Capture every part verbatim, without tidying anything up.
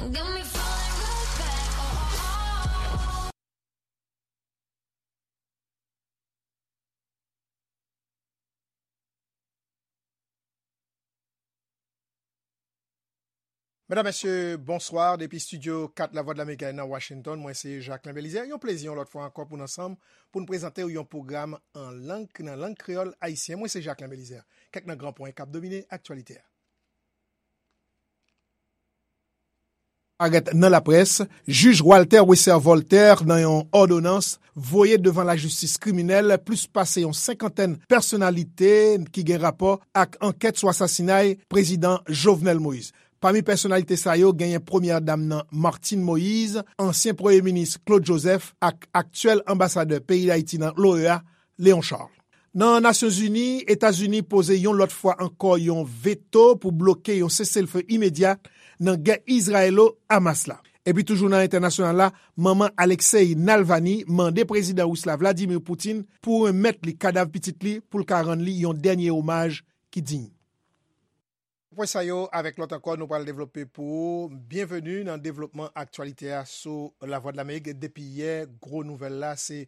Got me falling right back. Oh, oh, oh. Medam, mesye, bonswa. Depi estidyo kat Lavwadlamerik nan Washington, mwen se Jacquelin Belizaire. Yon plezi yon lòt fwa ankò pou n ansanm, pou n prezante w yon pwogram an lang, nan lang kreyòl ayisyen. Mwen se Jacquelin Belizaire. Kèk nan gran pwen k ap domine aktyalite a. Parèt nan laprès, jij Walter Wesser Voltaire nan yon òdonans voye devan lajistis kriminèl plis pase yon senkantèn pèsonalite ki gen rapò ak ankèt sou asasinay prezidan Jovenel Moïse. Pami pèsonalite sa yo, genyen premyè dam nan Martine Moïse, ansyen premye minis Claude Joseph ak aktyèl anbasadè peyi Dayiti nan l'O E A, Léon Charles. Nan Nasyonzini, Etazini poze yon lòt fwa ankò yon veto pou bloke yon seselfe imedya nan gè Izrayelo-Hamas la. Epi toujou nan entènasyonal la, manman Alexei Navalny mande prezidan ris la Vladimir Putin pou remèt li kadav pitit li pou l ka rann li yon dènye omaj ki diy. Apre sa yo, avèk lòt ankò, nou pral devlope pou ou. Byenveni nan devlopman aktyalite a sou Lavwadlamerik. Depi yè, gwo nouvèl la, se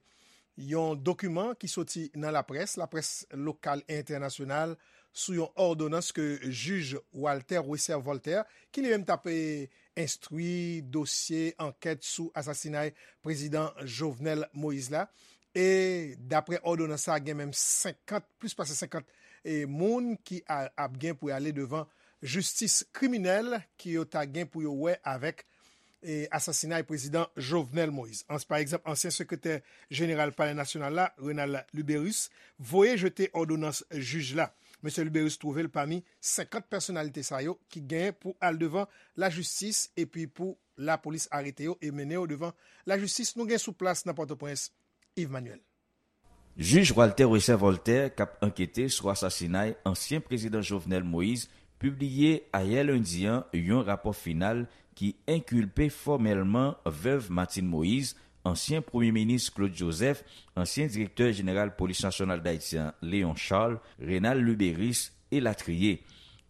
yon dokiman ki soti nan laprès, laprès lokal e entènasyonal, sou yon òdonans ke jij Walter Wesser Voltaire, ki li menm t ap, eh, enstwi dosye ankèt sou asasinay prezidan Jovenel Moïse la. E daprè òdonans sa, gen menm senkant, plis pase senkant, eh, moun ki a, ap gen pou y ale devan jistis kriminèl ki yo ta gen pou yo wè avèk, eh, asasinay prezidan Jovenel Moïse. Ans-, pa egzanp, ansyen sekretè jeneral Palè Nasyonal la, Renald Luberice, voye jete òdonans jij la. Mesye Luberice twouve l pami senkant pèsonalite sa yo ki gen pou al devan lajistis epi pou lapolis arete yo e mennen yo devan lajistis. Nou gen sou plas nan Pòtoprens, Yves Manuel. Jij Walter Wesser Voltaire, k ap ankete sou asasinay ansyen prezidan Jovenel Moïse, pibliye ayè lendi an yon rapò final ki enkilpe fòmèlman vèv Martine Moïse, ansyen premye minis Claude Joseph, ansyen direktè jeneral Polis Nasyonal Dayiti an, Léon Charles, Renald Luberice, elatriye.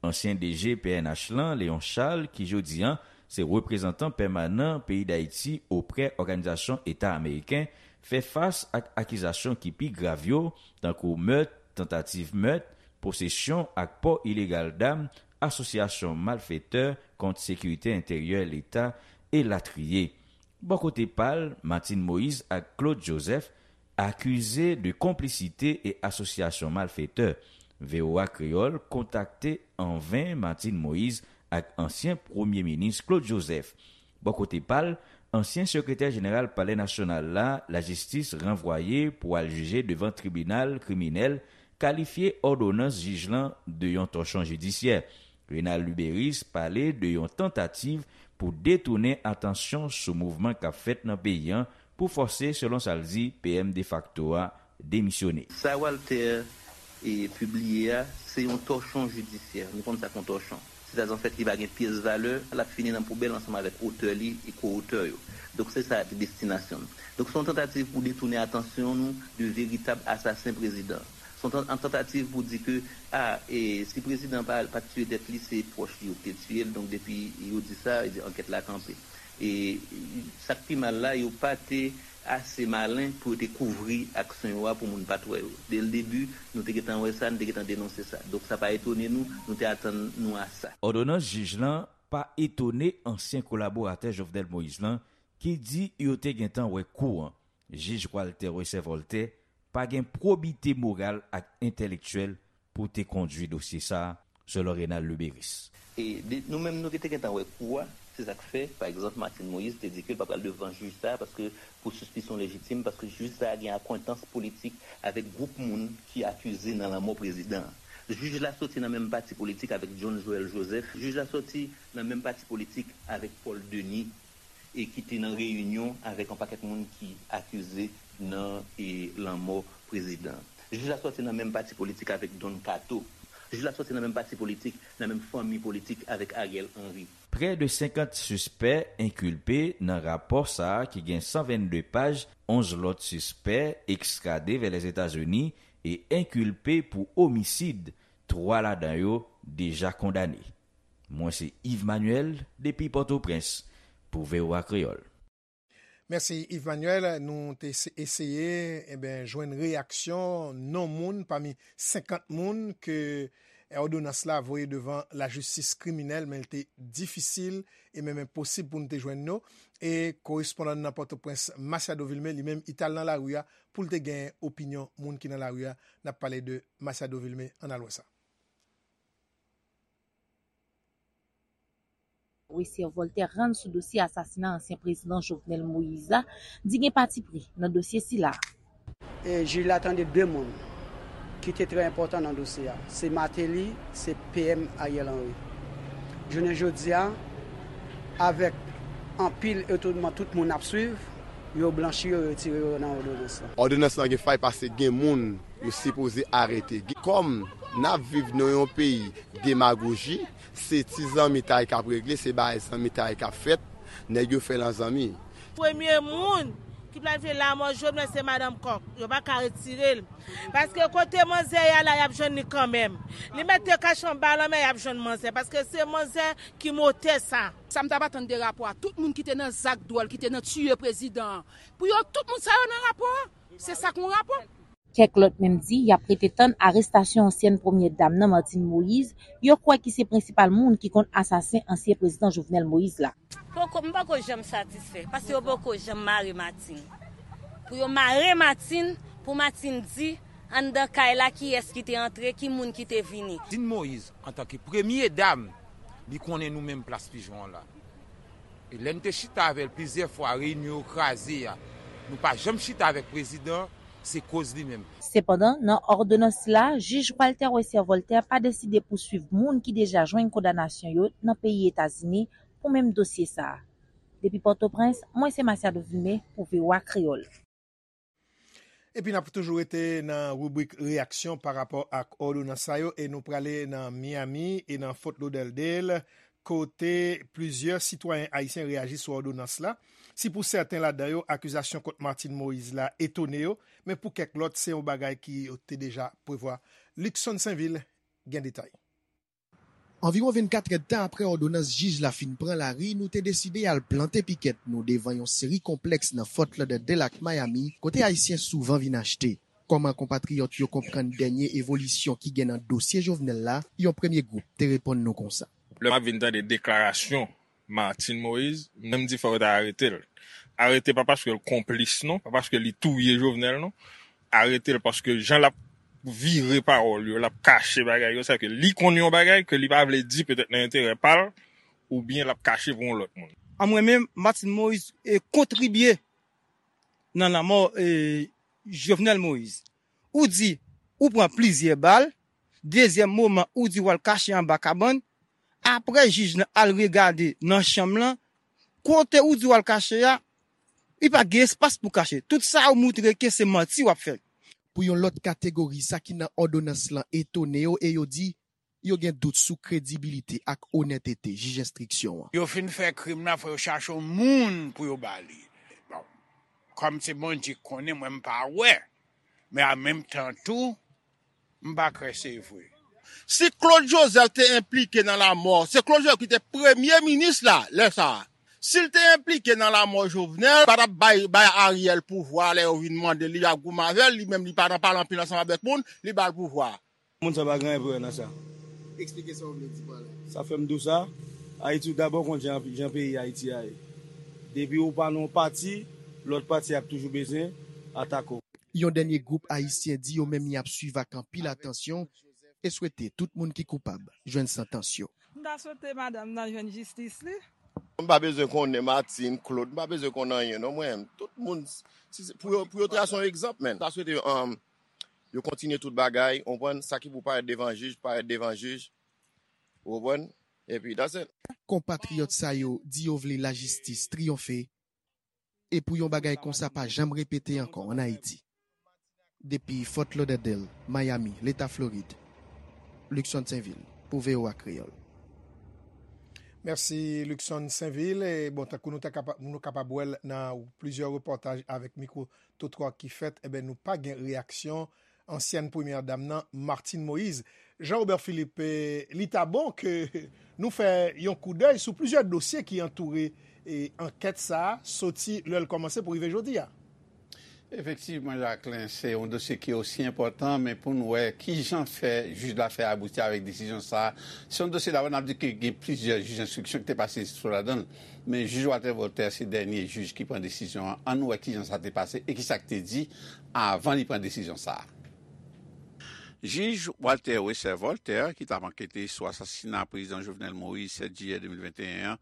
Ansyen D G P N H lan, Léon Charles, ki jodi an se reprezantan pèmanan peyi Dayiti oprè Òganizasyon Eta Ameriken, fè fas ak akizasyon ki pi grav yo, tankou mèt, tantativ mèt, posesyon ak pò ilegal dam, asosyasyon malfetè kont sekirite enteryè Leta, elatriye. Bò kote pa l, Martine Moïse ak Claude Joseph akize de konplisite e asosyasyon malfetè. V O A Kreyòl kontakte an ven Martine Moïse ak ansyen premye minis Claude Joseph. Bò kote pa l, ansyen sekretè jeneral Palè Nasyonal la, lajistis ranvwaye pou al jije devan tribinal kriminèl, kalifye òdonans jij lan de yon tòchon jidisyè. Renald Luberice pale de yon tantativ pou detounen atansyon sou mouvman k ap fèt nan peyi an pou fòse, selon sa l di, P M defakto a demisyone. Sa Walter, e, pibliye a, se yon tòchon jidisyè. Nou konn sa k yon tòchon. Sètadi, anfèt, li pa gen pyès valè, l ap fini nan poubèl ansanm avèk otè li e ko-otè yo. Donk, se sa ki destinasyon l. Donk, se yon tantativ pou detounen atansyon nou de veritab asasen prezidan. Se yon tan-, yon tantativ pou di ke, a, e, si prezidan pa, pa t tiye tèt li, se pwòch li yo ki te tiye l. Donk, depi yo di sa, e, ankèt la kanpe. E sa k pi mal la, yo pa te ase malen pou yo te kouvri aksyon yo a pou moun pa t wè yo. Dès le début, nou te gentan wè sa, nou te gentan denonse sa. Donk, sa pa etone nou, nou te atann nou a sa. Òdonans jij lan pa etone ansyen kolaboratè Jovenel Moïse lan, ki di yo te gentan wè kou an. Jij Walter Wesser Voltaire pa gen pwobite moral ak entèlektyèl pou te kondui dosye sa a, selon Renald Luberice. E de, nou menm, nou ki te gentan wè kou a, se sa k fè, pa egzanp, Martine Moïse te di ke l pa pral devan jij sa a, paske pou sispisyon lejitim, paske jij sa a gen akwentans politik avèk gwoup moun ki akize nan lanmò prezidan an. Jij la soti nan menm pati politik avèk John Joël Joseph. Jij la soti nan menm pati politik avèk Paul Denis, e ki te nan reyinyon avèk yon pakèt moun ki akize nan, e, lanmò prezidan. Jij la soti nan menm pati politik avèk Don Kato. Jij la soti nan menm pati politik, nan menm fanmi politik avèk Ariel Henry. Prè de senkant sispè enkilpe nan rapò sa a ki gen san vennde paj, onz lòt sispè ekstrade vè Lèzetazini e enkilpe pou omisid, twa ladan yo deja kondane. Mwen se Yves Manuel depi Pòtoprens. pou V O A Kreyòl. Mèsi Yves Manuel. Nou te eseye enben jwenn reyaksyon non moun pami senkant moun ke òdonans la voye devan lajistis kriminèl, men l te difisil e menm enposib pou n te jwenn yo. E korespondan n nan Pòtoprens, Masiado Vilmé, li menm, li t al nan lari a pou l te gen opinyon moun ki nan lari a. N ap pale de Masiado Vilmé, ann al wè sa. Wesser Voltaire rann sou dosye asasina ansyen prezidan Jovenel Moïse la, di gen patipri nan dosye sila. E jij la tande de moun ki te trè enpòtan nan dosye a. Se Martelly, se P M Ariel Henry. Jounen jodi a, avèk anpil etonman tout moun ap swiv, yo blanchi yo, yo retire yo nan òdonans lan. Òdonans lan gen fay paske gen moun yo sipoze arete. Kòm n ap viv nan yon peyi demagoji, se ti zanmitay k ap regle, se bagay zanmitay k ap fèt, nèg yo fè lan zanmi. Premye moun ki planifye lanmò Jovenel se madanm Kòk. Yo pa ka retire l. Paske kote manzè ye a la, y ap jwenn li kanmenm. Li mèt te kache anba lanmè, y ap jwenn manzè. Paske se manzè ki motè sa. Sa m t ap atann de rapò a, tout moun ki te nan zak dwòl, ki te nan tiye prezidan an, pou yo tout moun sa yo nan rapò a. Se sa k yon rapò. Kèk lòt menm di y ap rete tann arestasyon ansyèn premyè dam nan, Martine Moïse, yo kwè ki se prensipal moun ki konn asasen ansyen prezidan Jovenel Moïse la. Poko, m poko janm satisfè, paske yo poko janm mare Martine. Pou yo mare Martine, pou Martine di anndan kay la kiyès ki te antre, ki moun ki te vini. Martine Moïse, antanke premye dam, li konnen nou menm Plas Pijon an la. E lè n te chita avè l plizyè fwa, reyinyon yo kraze a, nou pa janm chita avèk prezidan, se koz li menm. Sepandan, nan òdonans la, jij Walter Wesser Voltaire pa deside pouswiv moun ki deja jwenn kondanasyon yo nan peyi Etazini pou menm dosye sa a. Depi Pòtoprens, mwen se Masiado Vilmé pou V O A Kreyòl. Epi n ap toujou rete nan ribrik reyaksyon pa rapò ak òdonans sa yo e nou prale nan Miami e nan Fort Lauderdale kote plizyè sitwayen ayisyen reyaji sou òdonans la. Si pou sèten ladan yo, akizasyon kont Martine Moïse la etone yo, men pou kèk lòt, se yon bagay ki yo te deja prevwa. Luckson Sainvil gen detay. Anviwon vennkat èdtan apre òdonans jij la fin pran lari, nou te deside al plante pikèt nou devan yon seri konplèks nan Fort Lauderdale ak Miami, kote Ayisyen souvan vin achte. Kòman konpatriyòt yo konprann dènye evolisyon ki gen nan dosye Jovenel la, yon premye gwoup te reponn nou konsa. Lè m ap vin tande deklarasyon Martine Moïse, m menm di fò yo ta arete l. Arete pa paske l konplis non, pa paske li touye Jovenel non. Arete l paske jan l ap vire pawòl yo, l ap kache bagay yo, sa ke li konn yon bagay ke li pa vle di petèt nan enterè pa l, oubyen l ap kache pou yon lòt moun. An mwen menm, Martine Moïse e kontribye nan lanmò e Jovenel Moïse. Ou di ou pran plizyè bal, dezyèm moman ou di w al kache anba kabann, apre jij lan al regade nan chanm lan, kote ou di w al kache a, li pa gen espas pou kache. Tout sa ou moutre ke se manti w ap fè. Pou yon lòt kategori, sa ki nan òdonans lan etone yo e yo di yo gen dout sou kredibilite ak onètete jij enstriksyon an. Yo fin fè krim nan, fò yo chache yon moun pou yo ba li. Bon, kòm se Bondye k konnen, mwen m pa wè. Men an menm tan tou, m pa kwè se vre. Si Claude Joseph te enplike nan lanmò, se Claude Joseph ki te premye minis la lè sa a. Si l te enplike nan lanmò Jovenel, pa t ap bay bay Ariel pouvwa lè yo vin mande l, li ap goumen avè l, li menm li pa nan pale anpil ansanm avèk moun, li ba l pouvwa. Moun sa pa gen anyen pou wè nan sa. Eksplike sa w vle di pa la. Sa fè m di w sa, Ayiti ou dabò konn jan jan peyi Ayiti a ye. Depi ou pa nan yon pati, lòt pati ap toujou bezwen atake w. Yon dènye gwoup ayisyen di yo menm y ap swiv ak anpil atansyon e swete tout moun ki koupab jwenn santans yo. M ta swete madanm nan jwenn jistis li. M pa bezwen konnen Martine, Claude, m pa bezwen konn anyen non mwen. Tout moun, si se, pou yo, pou yo trase yon egzanp, men. M ta swete um, yo kontinye tout bagay, ou konprann, sa ki pou parèt devan jij, parèt devan jij, ou konprann, epi that's it. Konpatriyòt sa yo di yo vle lajistis triyonfe e pou yon bagay konsa pa janm repete ankò ann Ayiti. Depi Fort Lauderdale, Miami, Leta Florid, Luckson Sainvil, pou V O A Kreyòl. Mèsi Luckson Sainvil. E bon, tankou nou ta kapa, nou kapab wè l nan plizyè repòtaj avèk mikwo twotwa ki fèt, enben nou pa gen reyaksyon ansyèn premyè dam nan, Martine Moïse. Jean Robert Philippe, e, li ta bon ke nou fè yon koudèy sou plizyè dosye ki antoure E ankèt sa a soti lè l kòmanse pou rive jodi a. Efektivman, Jacquelin, se yon dosye ki osi enpòtan, men pou n wè kijan fè jij la fè abouti avèk desizyon sa a. Se yon dosye, dabò, n ap di ke gen plizyè jij enstriksyon ki te pase sou ladan l, men jij Walter Voltaire se dènye jij ki pran desizyon an. Ann wè kijan sa te pase e kisa k te di avan li pran desizyon sa a. Jij Walter Wesser Voltaire, ki t ap ankete sou asasina Prezidan Jovenel Moïse sèt jiyè de mil venteyen an,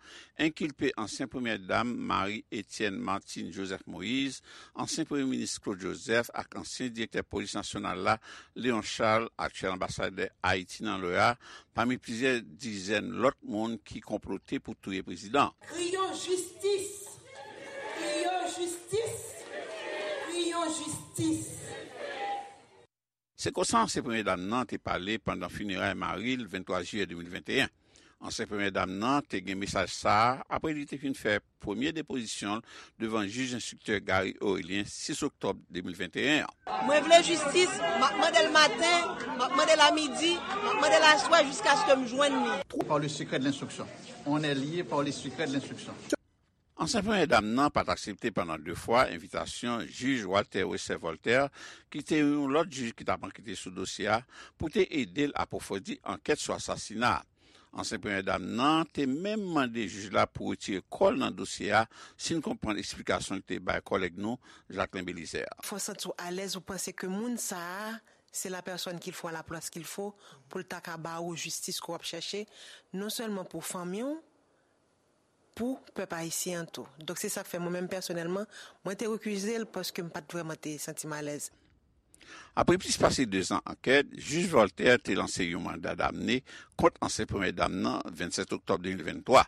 enkilpe ansyen Premyè Dam Marie Etienne Martine Joseph Moïse, ansyen Premye Minis Claude Joseph ak ansyen Direktè Polis Nasyonal la, Léon Charles, aktyèl anbasadè Ayiti nan l'O E A, pami plizyè dizèn lòt moun ki konplote pou touye prezidan an. Kriyon jistis! Kriyon jistis! Kriyon jistis! Se konsa ansyen Premye Dam nan te pale pandan fineray mari l venntwa jiyè de mil venteyen. Ansyen Premye Dam nan te gen mesaj sa a apre li te fin fè premye depozisyon l devan jij enstriktè Gary Orélien sis oktòb de mil venteyen an. Mwen vle jistis, m ap mande l maten, m ap mande l a midi, m ap mande l aswè jiskaske m jwenn li. Par le secret de l'instruction. On est lié par le secret de l'instruction. Ansyen Premye Dam nan pa t aksepte pandan de fwa envitasyon jij Walter Wesser Voltaire, ki te yon lòt jij ki t ap ankete sou dosye a, pou te ede l apwofondi ankèt sou asasina a. Ansyen Premye Dam nan te menm mande jij la pou retire kò l nan dosye a, si n konprann eksplikasyon li te bay kòlèg nou, Jacquelin Belizaire. Fò w santi w alèz, ou panse ke moun sa a, c'est la personne qu'il faut à la place qu'il faut, pou l ta ka ba ou jistis ke w ap chèche, non sèlman pou fanmi w, pou pèp ayisyen an tou. Donk, se sa k fè mwen menm pèsonèlman, mwen te rekize l paske m pa t vrèman te santi m alèz. Apre plis pase dezan ankèt, jij Voltaire te lanse yon manda damne kont ansyen Premye Dam nan vennsèt oktòb de mil venntwa.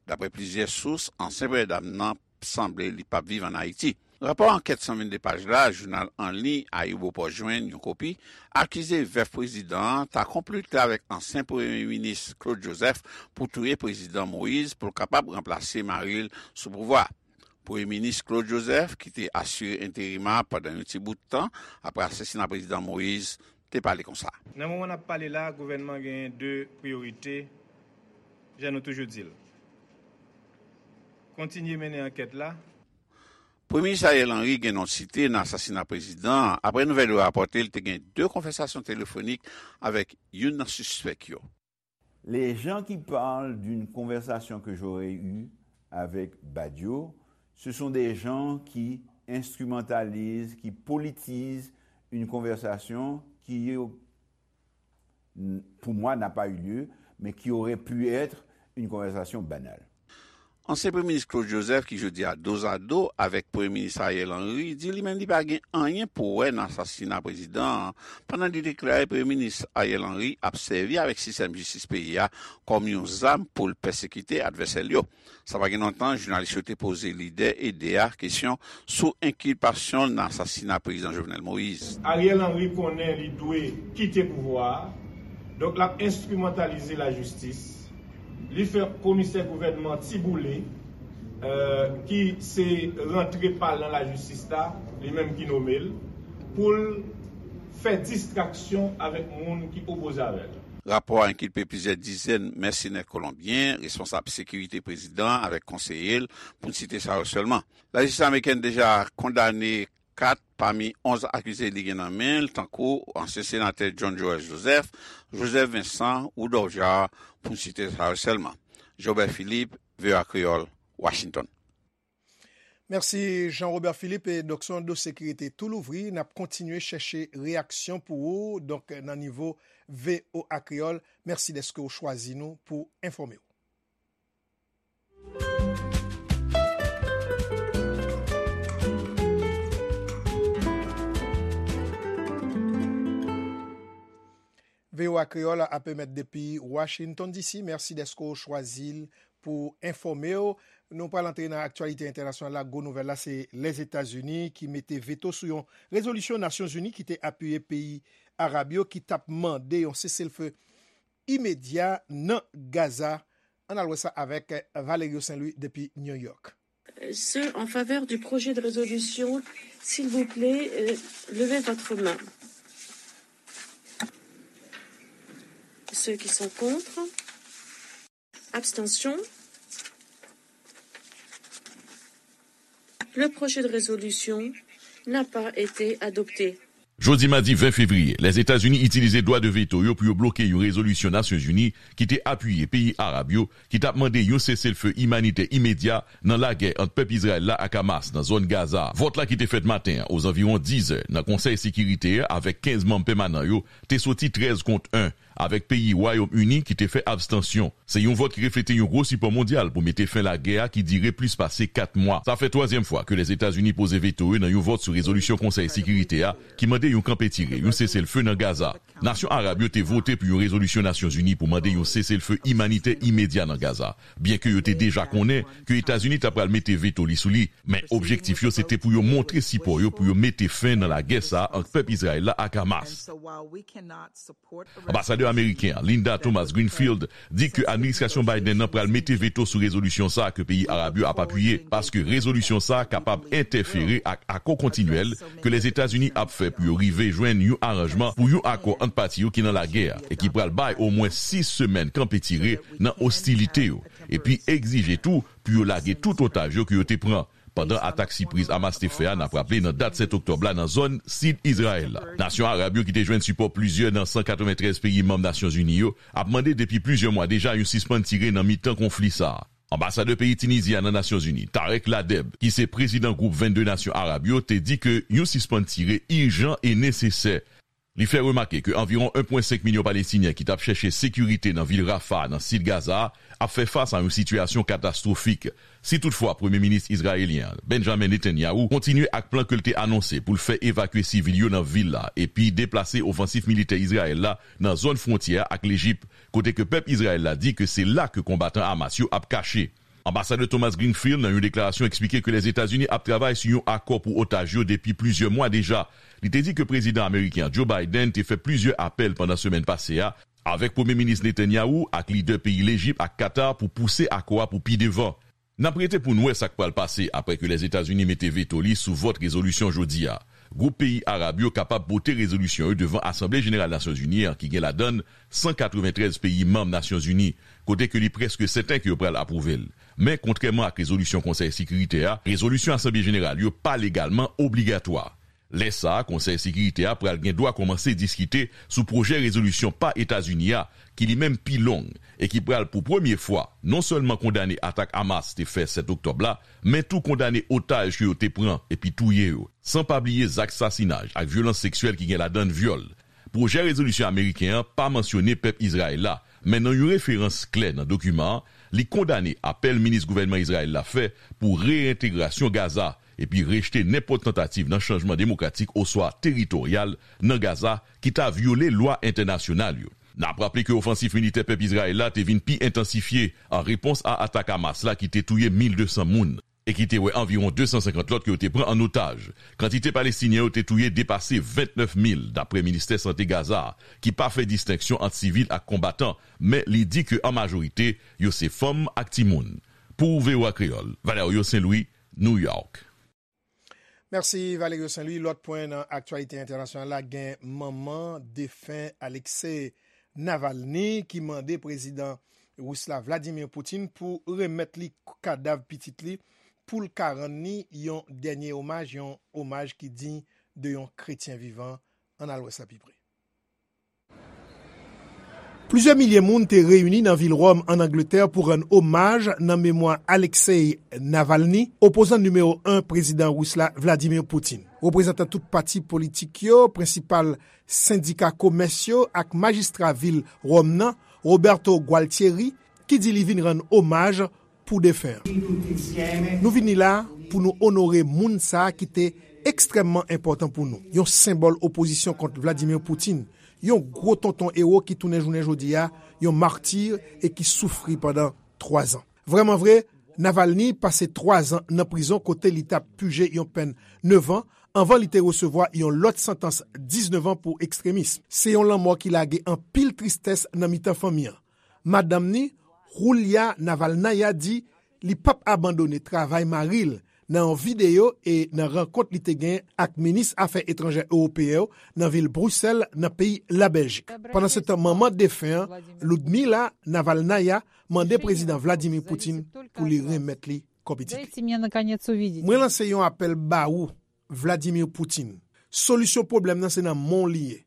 Daprè plizyè sous, ansyen Premye Dam nan sanble li p ap viv ann Ayiti. Rapò ankèt san vennde paj la, jounal an liy Ayibopost jwenn yon kopi, akize vèf prezidan an ta konplote avèk ansyen Premye Minis Claude Joseph pou touye Prezidan Moïse pou l kapab ranplase mari l sou pouvwa a. Premye Minis Claude Joseph, ki te asire enterim a pandan yon ti bout tan apre asasina Prezidan Moïse, te pale konsa. Nan moman n ap pale la, gouvènman genyen de priyorite, jan nou toujou di l. Kontinye mennen ankèt la. Premye Minis Ariel Henry gen non site nan asasina prezidan an, apre nouvèl yo rapòte l te gen de konvèsasyon telefonik avèk youn nan sispèk yo. Les gens qui parlent d'une conversation que j'aurais eue avec Badio, ce sont des gens qui instrumentalisent, qui politisent une conversation qui, pour moi, n'a pas eu lieu, mais qui aurait pu être une conversation banale. Ansyen Premye Minis Claude Joseph, ki jodi a dozado avèk Premye Minis Ariel Henry, di li menm li pa gen anyen pou wè nan asasina prezidan an, pandan li deklare Premye Minis Ariel Henry ap sèvi avèk sistèm jistis peyi a kòm yon zam pou l pèsekite advèsè l yo. Sa pa gen lontan, jounalis yo te poze lidè EDE a kesyon sou enkilpasyon l nan asasina Prezidan Jovenel Moïse. Ariel Henry konnen li dwe kite pouvwa a, donk l ap enstrimantalize lajistis. Li fè komisè gouvènman Tiboule, euh, ki se rantre pa l nan lajistis la, li menm ki nome l, pou l fè distraksyon avèk moun ki opoze avè l. Rapò a enkilpe plizyè dizèn mèsenè kolonbyen, responsab sekirite prezidan an avèk konseye l, pou n site sa yo sèlman. Lajistis amerikèn deja kondane kat pami onz akize li gen nan men l, tankou ansyen senatè John Joël Joseph, Joseph Vincent, Rudolph Jaar, pou n site sa yo sèlman. Jobert Philippe, V O A Kreyòl, Washington. Mèsi Jean Robert Philippe. E donk, se yon dosye ki rete tou louvri. N ap kontinye chèche reyaksyon pou ou, donk, nan nivo V O A Kreyòl. Mèsi dèske w chwazi nou pou enfòme w. V O A Kreyòl ap emèt depi Washington D C. Mèsi dèske w chwazi l pou enfòme w. Nou pral antre nan aktyalite entènasyonal la. Gwo nouvèl la, se Lèzetazini ki mete veto sou yon rezolisyon Nasyonzini ki te apiye peyi arab yo ki t ap mande yon seselfe imedya nan Gaza. Ann al wè sa avèk Valerio Saint Louis depi New York. Ceux en faveur du projet de résolution, s'il vous plaît, euh, levez votre main. Ceux qui sont contre. Abstention. Le projet de résolution n'a pas été adopté. Jodi madi ven fevriye, Lèzetazini itilize dwa de veto yo pou yo bloke yon rezolisyon Nasyonzini ki te apiye peyi arab yo ki t ap mande yon seselfe imanitè imedya nan lagè ant pèp Izrayèl la ak Hamas nan zòn Gaza. Vòt la ki te fèt maten an ozanviwon diz è nan Konsèy Sekirite a avèk kenz manm pèmanan yo te soti trèz kont en, avèk peyi Wayòm Ini ki te fè abstansyon. Se yon vòt ki reflete yon gwo sipò mondyal pou mete fen lagè a ki dire plis pase kat mwa. Sa fè twazyèm fwa ke Lèzetazini poze veto yo nan yon vòt sou rezolisyon Konsèy Sekirite a ki mande yon kanpe tire, yon seselfe nan Gaza. Nasyon arab yo te vote pou yon rezolisyon Nasyonzini pou mande yon seselfe imanitè imedya nan Gaza, byenke yo te deja konnen ke Etazini ta pral mete veto li sou li, men objektif yo se te pou yo montre sipò yo pou yo mete fen nan lagè sa a ant pèp Izrayèl la ak Hamas. Anbasadè ameriken an, Linda Thomas Greenfield, di ke administrasyon Biden nan pral mete veto sou rezolisyon sa a ke peyi arab yo ap apiye, paske rezolisyon sa a kapab entèfere ak akò kontinyèl ke Lèzetazini ap fè pou yo rive jwenn yon aranjman pou yon akò ant pati yo ki nan lagè a e ki pral bay omwen sis semèn kanpe tire nan ostilite yo, epi egzije tou pou yo lage tout otaj yo ke yo te pran pandan atak sipriz Hamas te fè a, n ap raple, nan dat sèt oktòb la nan zòn sid Izrayèl la. Nasyon arab yo ki te jwenn sipò plizyè nan san katreventrèz peyi manm Nasyonzini yo ap mande depi plizyè mwa deja yon sispann tire nan mitan konfli sa a. Anbasadè peyi Tinizi a nan Nasyonzini, Tarek Ladeb, ki se prezidan gwoup vennde nasyon arab yo, te di ke yon sispann tire ijan e nesesè. Li fè remake ke anviwon en pwen senk milyon Palestinyen ki t ap chèche sekirite nan vil Rafah, nan sid Gaza a, ap fè fas a yon sitiyasyon katastwofik. Si toutfwa Premye Minis izrayelyen an, Benjamin Netanyahu, kontinye ak plan ke l te anonse pou l fè evakye sivil yo nan vil la epi deplase ofansif militè Izrayèl la nan zòn fwontyè a ak Lejip, kote ke pèp Izrayèl la di ke se la ke konbatan Hamas yo ap kache. Anbasadè Thomas Greenfield, nan yon deklarasyon, eksplike ke Lèzetazini ap travay sou yon akò pou otaj yo depi plizyè mwa deja. Li te di ke prezidan ameriken an, Joe Biden, te fè plizyè apèl pandan semèn pase a avèk Premye Minis Netanyahu ak lidè peyi Lejip ak Katar pou pouse akò a pou pi devan. N ap rete pou n wè sa k pral pase apre ke Lèzetazini mete veto li sou vòt rezolisyon jodi a. Gwoup peyi arab yo kapab pote rezolisyon yo devan Asanble Jeneral Nasyonzini an, ki gen ladan l san katreventrèz peyi manm Nasyonzini, kote ke li prèske sèten ke yo pral apwouve l. Men, kontrèman ak rezolisyon Konsèy Sekirite a, rezolisyon Asanble Jeneral yo pa legalman obligatwa. Lè sa a, Konsèy Sekirite a pral gen dwa kòmanse diskite sou pwojè rezolisyon pa Etazini a, ki li menm pi long, e ki pral pou premye fwa non sèlman kondane atak Hamas te fè sèt oktòb la, men tou kondane otaj ke yo te pran epi touye yo, san pa bliye zak sasinaj ak vyolans seksyèl ki gen ladan l vyòl. Pwojè rezolisyon ameriken an pa mansyone pèp Izrayèl la, men nan yon referans klè nan dokiman an, li kondane apèl minis gouvènman Izrayèl la fè pou reyentegrasyon Gaza, epi rejte nenpòt tantativ nan chanjman demokratik oswa teritoryal nan Gaza ki ta vyole lwa entènasyonal yo. N ap raple ke ofansif militè pèp Izrayèl la te vin pi entansifye an repons a atak Hamas la ki te touye mil de san moun e ki te wè anviwon de san senkant lòt ke yo te pran an otaj. Kantite Palestinyen yo te touye depase vennèf mil, dapre Ministè Sante Gaza a, ki pa fè distenksyon ant sivil ak konbatan, men li di ke an majorite, yo se fanm ak timoun. Pou V O A Kreyòl, Valerio Saint Louis, New York. Mèsi Valerio Saint Louis. Lòt pwen nan aktyalite entènasyonal la, gen manman defen Alexei Navalny ki mande prezidan ris la Vladimir Putin pou remèt li kadav pitit li pou l ka rann li yon dènye omaj, yon omaj ki diy de yon kretyen vivan. Ann al wè sa pi pre. Plizyè milye moun te reyini nan vil Wòm, ann Angletè, pou rann omaj nan memwa Alexei Navalny, opozan nimewo en prezidan ris la, Vladimir Putin. Reprezantan tout pati politik yo, prensipal sendika komès yo ak majistra vil Wòm nan, Roberto Gualtieri, ki di li vin rann omaj pou defen an. Nou vini la pou nou onore moun sa a ki te ekstrèmman enpòtan pou nou, yon senbòl opozisyon kont Vladimir Putin, yon gwo tonton ewo ki tounen jounen jodi a yon mati e ki soufri pandan twazan. Vrèmanvre, Navalny pase twazan nan prizon kote li t ap pije yon pèn nevan anvan li te resevwa yon lòt santans diznèf an pou ekstremis. Se yon lanmò ki lage anpil tristès nan mitan fanmi an. Madanm ni, Julia Navalnaya, di li p ap abandone travay mari l nan yon videyo e nan rankont li te gen ak minis afè etranjè ewopeyen yo nan vil Brisèl, nan peyi Labèljik. Pandansetan, manman defen an, Ludmila Navalnaya, mande prezidan Vladimir Putin pou li remèt li Копитики. Дайте мне, наконец, увидеть. Mwen lanse yon apèl ba ou, Vladimir Putin. Solisyon pwoblèm nan se nan men w li ye.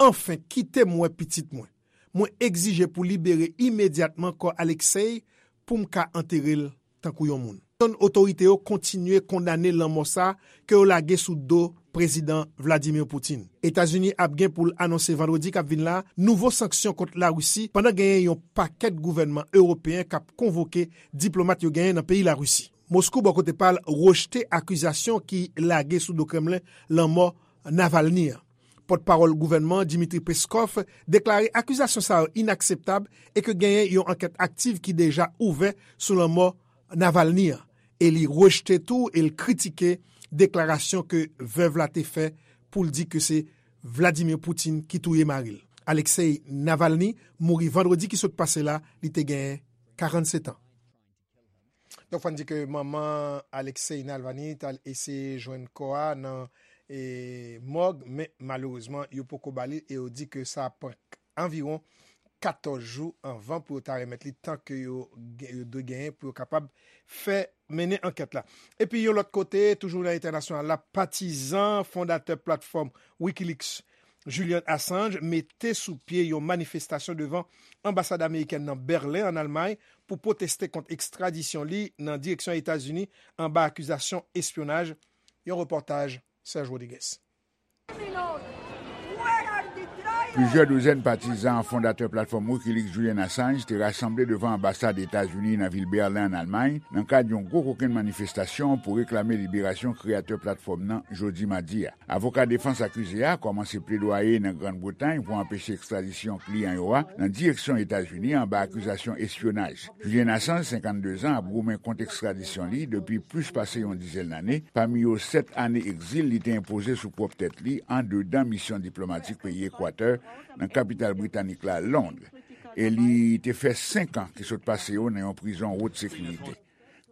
Anfen, kite m wè pitit mwen. Mwen egzije pou libere imedyatman kò Alexei pou m ka antere l tankou yon moun. Otorite yo kontinye kondane lanmò sa ke yo lage sou do Prezidan Vladimir Putin. Etazini ap gen pou l anonse vandredi k ap vin la nouvo sanksyon kont Larisi pandan genyen yon pakèt gouvènman ewopeyen k ap konvoke diplomat yo genyen nan peyi Larisi. Moskou, bò kote pa l, rejte akizasyon ki lage sou do Kremlen lanmò Navalny an. Pòtpawòl gouvènman an, Dmitry Peskov, deklare akizasyon sa yo inakseptab e ke genyen yon ankèt aktiv ki deja ouvè sou lanmò Navalny an. E li rejte tou e l kritike deklarasyon ke vèv la te fè pou l di ke se Vladimir Putin ki touye mari l. Alexei Navalny mouri vandredi ki sot pase la, li te genyen karannsèt an. Donk, fò n di ke manman Alexei Navalny t al eseye jwenn kò a nan, e, mòg, men malerezman, yo poko ba li e yo di ke sa pran anviwon katòz jou anvan pou yo ta remèt li, tan ke yo, yo dwe genyen pou yo kapab fè mennen ankèt la. Epi, yon lòt kote, toujou nan entènasyonal la, patizan fondatè platfòm Wikileaks, Julian Assange, mete sou pye yon manifestasyon devan anbasad amerikèn nan Bèlen, an Almay, pou pwoteste kont ekstradisyon li nan direksyon Etazini anba akizasyon espyonaj. Yon repòtaj Serge Rodriguez. Plizyè douzèn patizan fondatè platfòm Wikileaks, Julian Assange, te rasanble devan anbasad Etazini nan vil Bèlen, an Almay, nan kad yon gwo kokenn manifestasyon pou reklame liberasyon kreyatè platfòm nan jodi madi a. Avoka defans akize a kòmanse pledwaye nan Grann Bretay pou anpeche ekstradisyon kliyan yo a nan direksyon Etazini anba akizasyon espyonaj. Julian Assange, senkanndezan, ap goumen kont ekstradisyon li depi plis pase yon dizèn lane, pami yo sèt ane egzil li te enpoze sou pwòp tèt li andedan misyon diplomatik peyi Ekwatè nan kapital britanik la, Lond. E li te fè senk an ki sot pase yo nan yon prizon wot sekirite.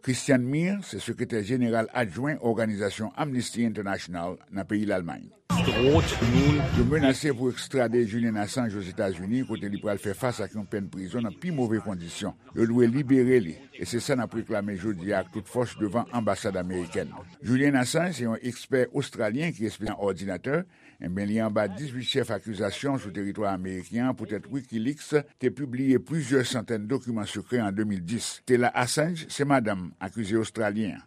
Christian Meier se sekretè jeneral adjwen òganizasyon Amnesty International nan peyi Lalmay. Yo menase pou ekstrade Julian Assange Ozetazini, kote li pral fè fas ak yon pèn prizon nan pi move kondisyon. Yo dwe libere li, e se sa n ap reklame jodi a ak tout fòs devan anbasad amerikèn. Julian Assange se yon ekspè ostralyen ki espesyalize nan òdinatè. Ebyen, li anba dizuit chèf akizasyon sou teritwa ameriken an poutèt Wikileaks te pibliye plizyè santèn dokiman sekrè an de mil dis. Taylor Assange se madanm akize ostralyen an.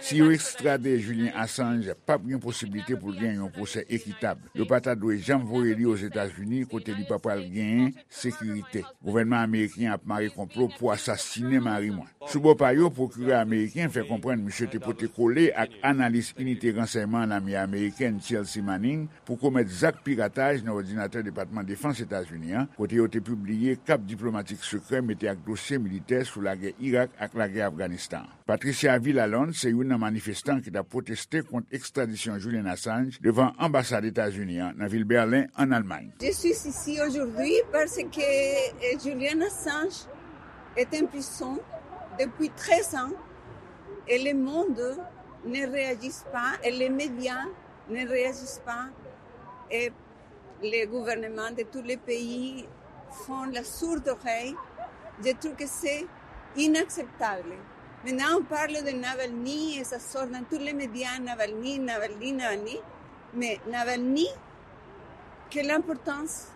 Si yo ekstrade Julian Assange, p ap gen posiblite pou l gen yon pwosè ekitab. Yo pa ta dwe janm voye li Ozetazini, kote li pa pral genyen sekirite. Gouvènman ameriken an ap mare konplo pou asasinen mari mwen. Sou bò pa yo, pwokirè ameriken fè konprann misye te pote kole ak analis inite ransèyman lame amerikèn Chelsea Manning pou komèt zak pirataj nan òdinatè Depatman Defans Etazini an, kote yo te pibliye kap diplomatik sekrè mete ak dosye militè sou lagè Irak ak lagè Afganistan. Patricia Villalonde se youn nan manifestan ki t ap pwoteste kont ekstradisyon Julian Assange devan anbasad Etazini an nan vil Bèlen, an Almay. Je suis ici aujourd'hui parce que, euh, Julian Assange est en prison depuis treize ans et le monde ne réagit pas et les médias ne réagissent pas. Et les gouvernements de tous les pays font la sourde oreille. Je trouve que c'est inacceptable. Maintenant, on parle de Navalny et ça sort dans tous les médias, Navalny, Navalny, Navalny. Mais Navalny, quelle importance?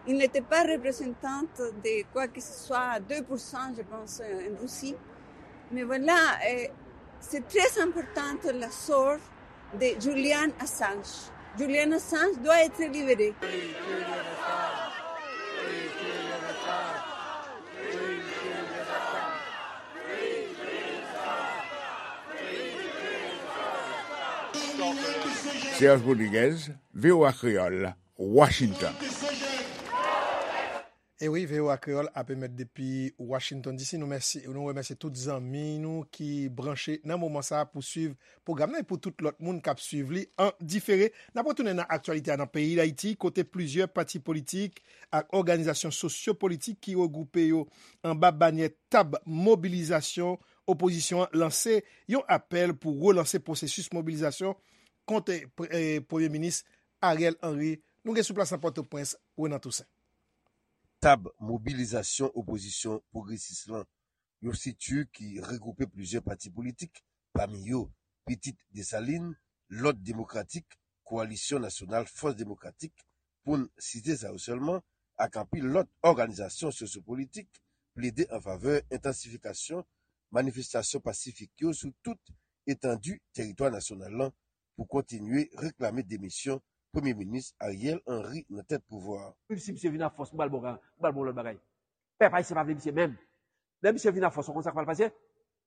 Il n'était pas représentant de quoi que ce soit, deux pour cent, je pense, en Russie. Mais voilà, euh, c'est très important le sort de Julian Assange. Julian Assange doit être libéré. Serge Rodriguez, V O A Kreyòl, Washington. E wi, V O A Kreyòl ap emèt depi Washington D C. Nou mèsi, nou remèsye tout zanmi nou ki branche nan moman sa a pou swiv pwogram nan e pou tout lòt moun k ap swiv li an difere. N ap retounen nan aktyalite a nan peyi Dayiti, kote plizyè pati politik ak òganizasyon sosyo-politik ki regwoupe yo anba banyè tab mobilizasyon opozisyon an lanse yon apèl pou relanse pwosesis mobilizasyon kont, eh, Premye Minis Ariel Henry. Nou gen sou plas nan Pòtoprens, Renan Toussaint. Tab mobilizasyon opozisyon pwogresis lan yon strikti ki regwoupe plizyè pati politik, pami yo Pitit Desalin, Lòd Demokratik, Kowalisyon Nasyonal Fòs Demokratik, pou n site sa yo sèlman, ak anpil lòt òganizasyon sosyopolitik, plede an favè entansifikasyon manifestasyon pasifik yo sou tout etandi teritwa nasyonal lan pou kontinye reklame demisyon Premye Minis Ariel Henry nan tèt pouvwa a. Menm si misye vin ak fòs, m pral ba w, m pral ba w lòt bagay. Pèp ayisyen pa vle misye menm. Lè misye vin ak fòs, ou konn sa k pral pase?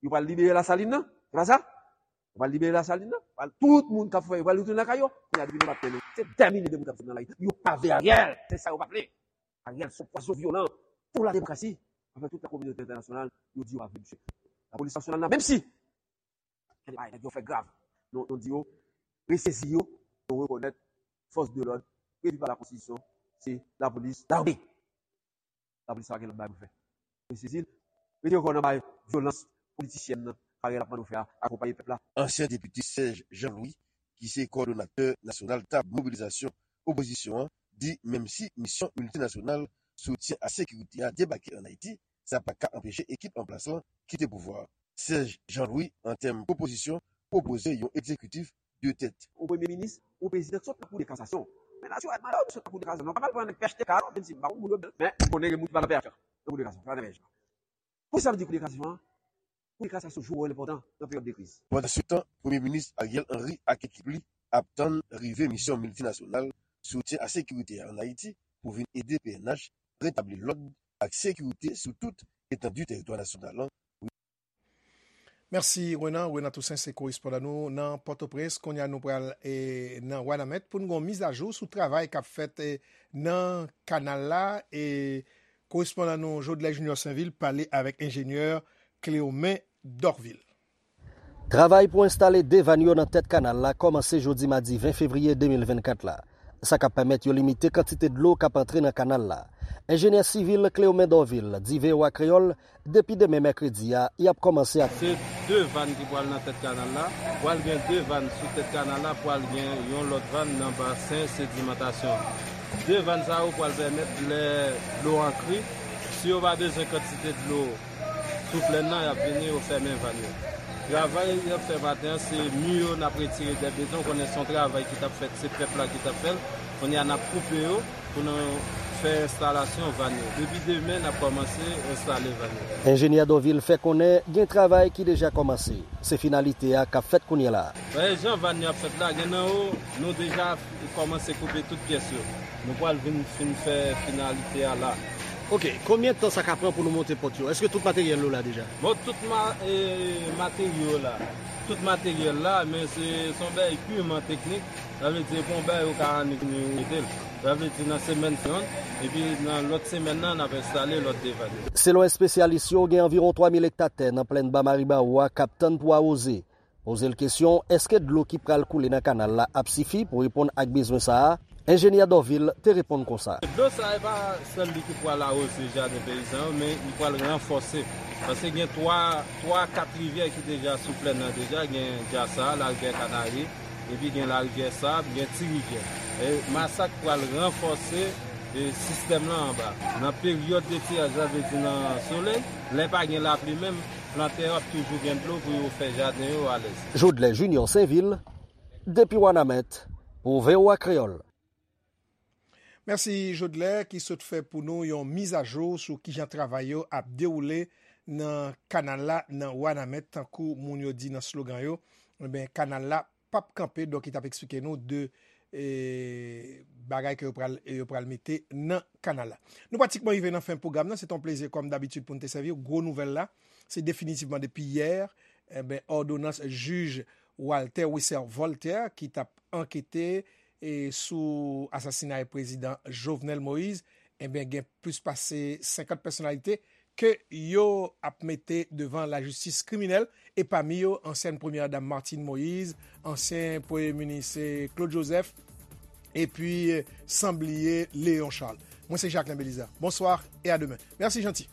Yo pral libere Lasalin nan, se pa sa? Yo pral libere Lasalin nan, pral, tout moun k ap fè, yo pral retounen lakay yo. Kounye a, depi nou pa t tande, se dè milye de moun k ap sot nan lari. Yo pa vle Ariel, se sa yo pa vle. Ariel se yon pwason vyolan pou la demokrasi. Anfen, tout la kominote entènasyonal, yo di yo pa vle misye. Lapolis nasyonal la, menm si gen de bagay nèg yo fè grav, nou, nou di yo, resezi yo, nou rekonèt fòs de lòd previ pa la konstitisyon, se lapolis, lame. Lapolis pa gen lòt bagay pou fè. Resezi l, mete yo kò nan bay vyolans politisyèn nan, Ariel ap mande w fè a, akonpaye pèp la. Ansyen depite Serge Jean Louis, ki se kowòdonatè nasyonal tab mobilizasyon opozisyon an, di menm si misyon miltinasyonal soutyen a sekirite a debake ann Ayiti, sa pa ka anpeche ekip an plas lan kite pouvwa a. Serge Jean Louis, an tèm pwopozisyon, pwopoze yon egzekitif de tèt. Yon premye minis, yon prezidan ki sot nan kou de kasasyon. Men natirèlman, lè w sot nan kou de kasasyon, nou pa pral pran nèg P H T K non, menm si m pa konn moun yo byen, men m konnen gen moun ki pa nan P H T K, nan kou de kasasyon, pa nan P H T K. Poukisa m di kou de kasasyon an? Kou de kasasyon jwe yon wòl enpòtan nan peryòd de kriz. Pandansetan, Premye Minis Ariel Henry ak ekip li ap tann rive misyon miltinasyonal soutyen a sekirite a ann Ayiti pou vin ede P N H retabli lòd ak sekirite sou tout etandi teritwa nasyonal lan. Mèsi, Renan. Renan Toussaint se korespondan nou nan Pòtoprens. Kounye a, nou pral, e, nan Wanament pou n gen yon mizajou sou travay k ap fèt, e, nan kanal la. E korespondan nou, Jodlè Junior Sainvil, pale avèk enjenyè Cléomen Dorvil. Travay pou enstale de vàn yo nan tèt kanal la kòmanse jodi madi ven fevriye de mil vennkat la. Sa k ap pèmèt yo limite kantite dlo k ap antre nan kanal la. Enjenyè sivil Cléomen Dorvil di V O A Kreyòl, depi demen mèkredi a, y ap kòmanse ak. Se de vàn ki pral nan tèt kanal la. Pral gen de vàn sou tèt kanal la, pral gen yon lòt vàn nan basen sedimantasyon. De vàn sa yo pral pèmèt lè dlo antre, si yo pa bezwen kantite dlo sou plèn nan, y ap vini, yo fèmen vàn yo. Travay y ap fè maten an, se mi yo n ap retire dè beton, konnen se yon travay ki t ap fèt, se pèp la ki t ap fè l. Kounye a, n ap koupe yo pou nou fè enstalasyon vàn yo. Depi demen, n ap kòmanse enstale vàn yo. Enjenyè Dorvil fè konnen gen travay ki deja kòmanse. Se finalite a k ap fèt kounye a la. Wè, jan vàn yo ap fèt la, gen nan yo, nou deja kòmanse koupe tout pyès yo. Nou pral vin fin fè finalite a la. Ok, konbyen tan sa ka pran pou nou monte pòt yo? Èske tout materyèl yo la deja? Bon, tout ma-, e, materyo la. Tout materyèl la, men se, se yon bagay piman teknik. Sa vle di, se pa yon bagay yo ka annik vini mete l. Sa vle di, nan semèn se yonn, epi nan lòt semèn nan, n ap enstale lòt de vàn yo. Selon espesyalis yo, gen anviwon twa mil ekta tè nan plèn Ba Maribawou a k ap tann pou awoze. Poze l kesyon, èske dlo ki pral koule nan kanal la ap sifi pou reponn ak bezwen sa a? Enjenyè Dorvil te reponn konsa. Dlo sa a, e pa sèl li ki pral awoze jaden peyizan yo, men li pral ranfòse. Paske gen twa, twa, kat rivyè ki deja sou plèn nan deja, gen Dyasa, Larivyè Kanari, epi gen Larivyè Sab, gen Ti Rivyè. E Masak pral ranfòse, e, sistèm lan anba. Nan peryòd de tiraj, sa vle di nan solèy, lè pa gen lapli menm, plantè yo ap toujou gen dlo pou yo fè jaden yo alèz. Jodlè Junior Sainvil, depi Wanament, pou V O A Kreyòl. Mèsi, Jodlè, ki sot fè pou nou yon mizajou sou kijan travay yo ap dewoule nan kanal la, nan Wanament, tankou moun yo di nan slogan yo. Ebyen, kanal la p ap kanpe, donk, li t ap eksplike nou de, e, bagay ke yo pral, yo pral mete nan kanal la. Nou pratikman rive nan fen pwogram nan. Se t on plezi, kòm dabitid, pou n te sèvi w. Gwo nouvèl la, se definitivman depi yè, enben, òdonans jij Walter Wesser Voltaire, ki t ap ankete, e, sou asasinay prezidan Jovenel Moïse, enben, gen plis pase senkant pèsonalite ke yo ap mete devan lajistis kriminèl, e pami yo, ansyèn premyè dam Martine Moïse, ansyen premye minis, eh, Claude Joseph, epi, eh, san bliye Léon Charles. Mwen se Jacquelin Belizaire. Bonsoir et à demain. Merci, Jeanty.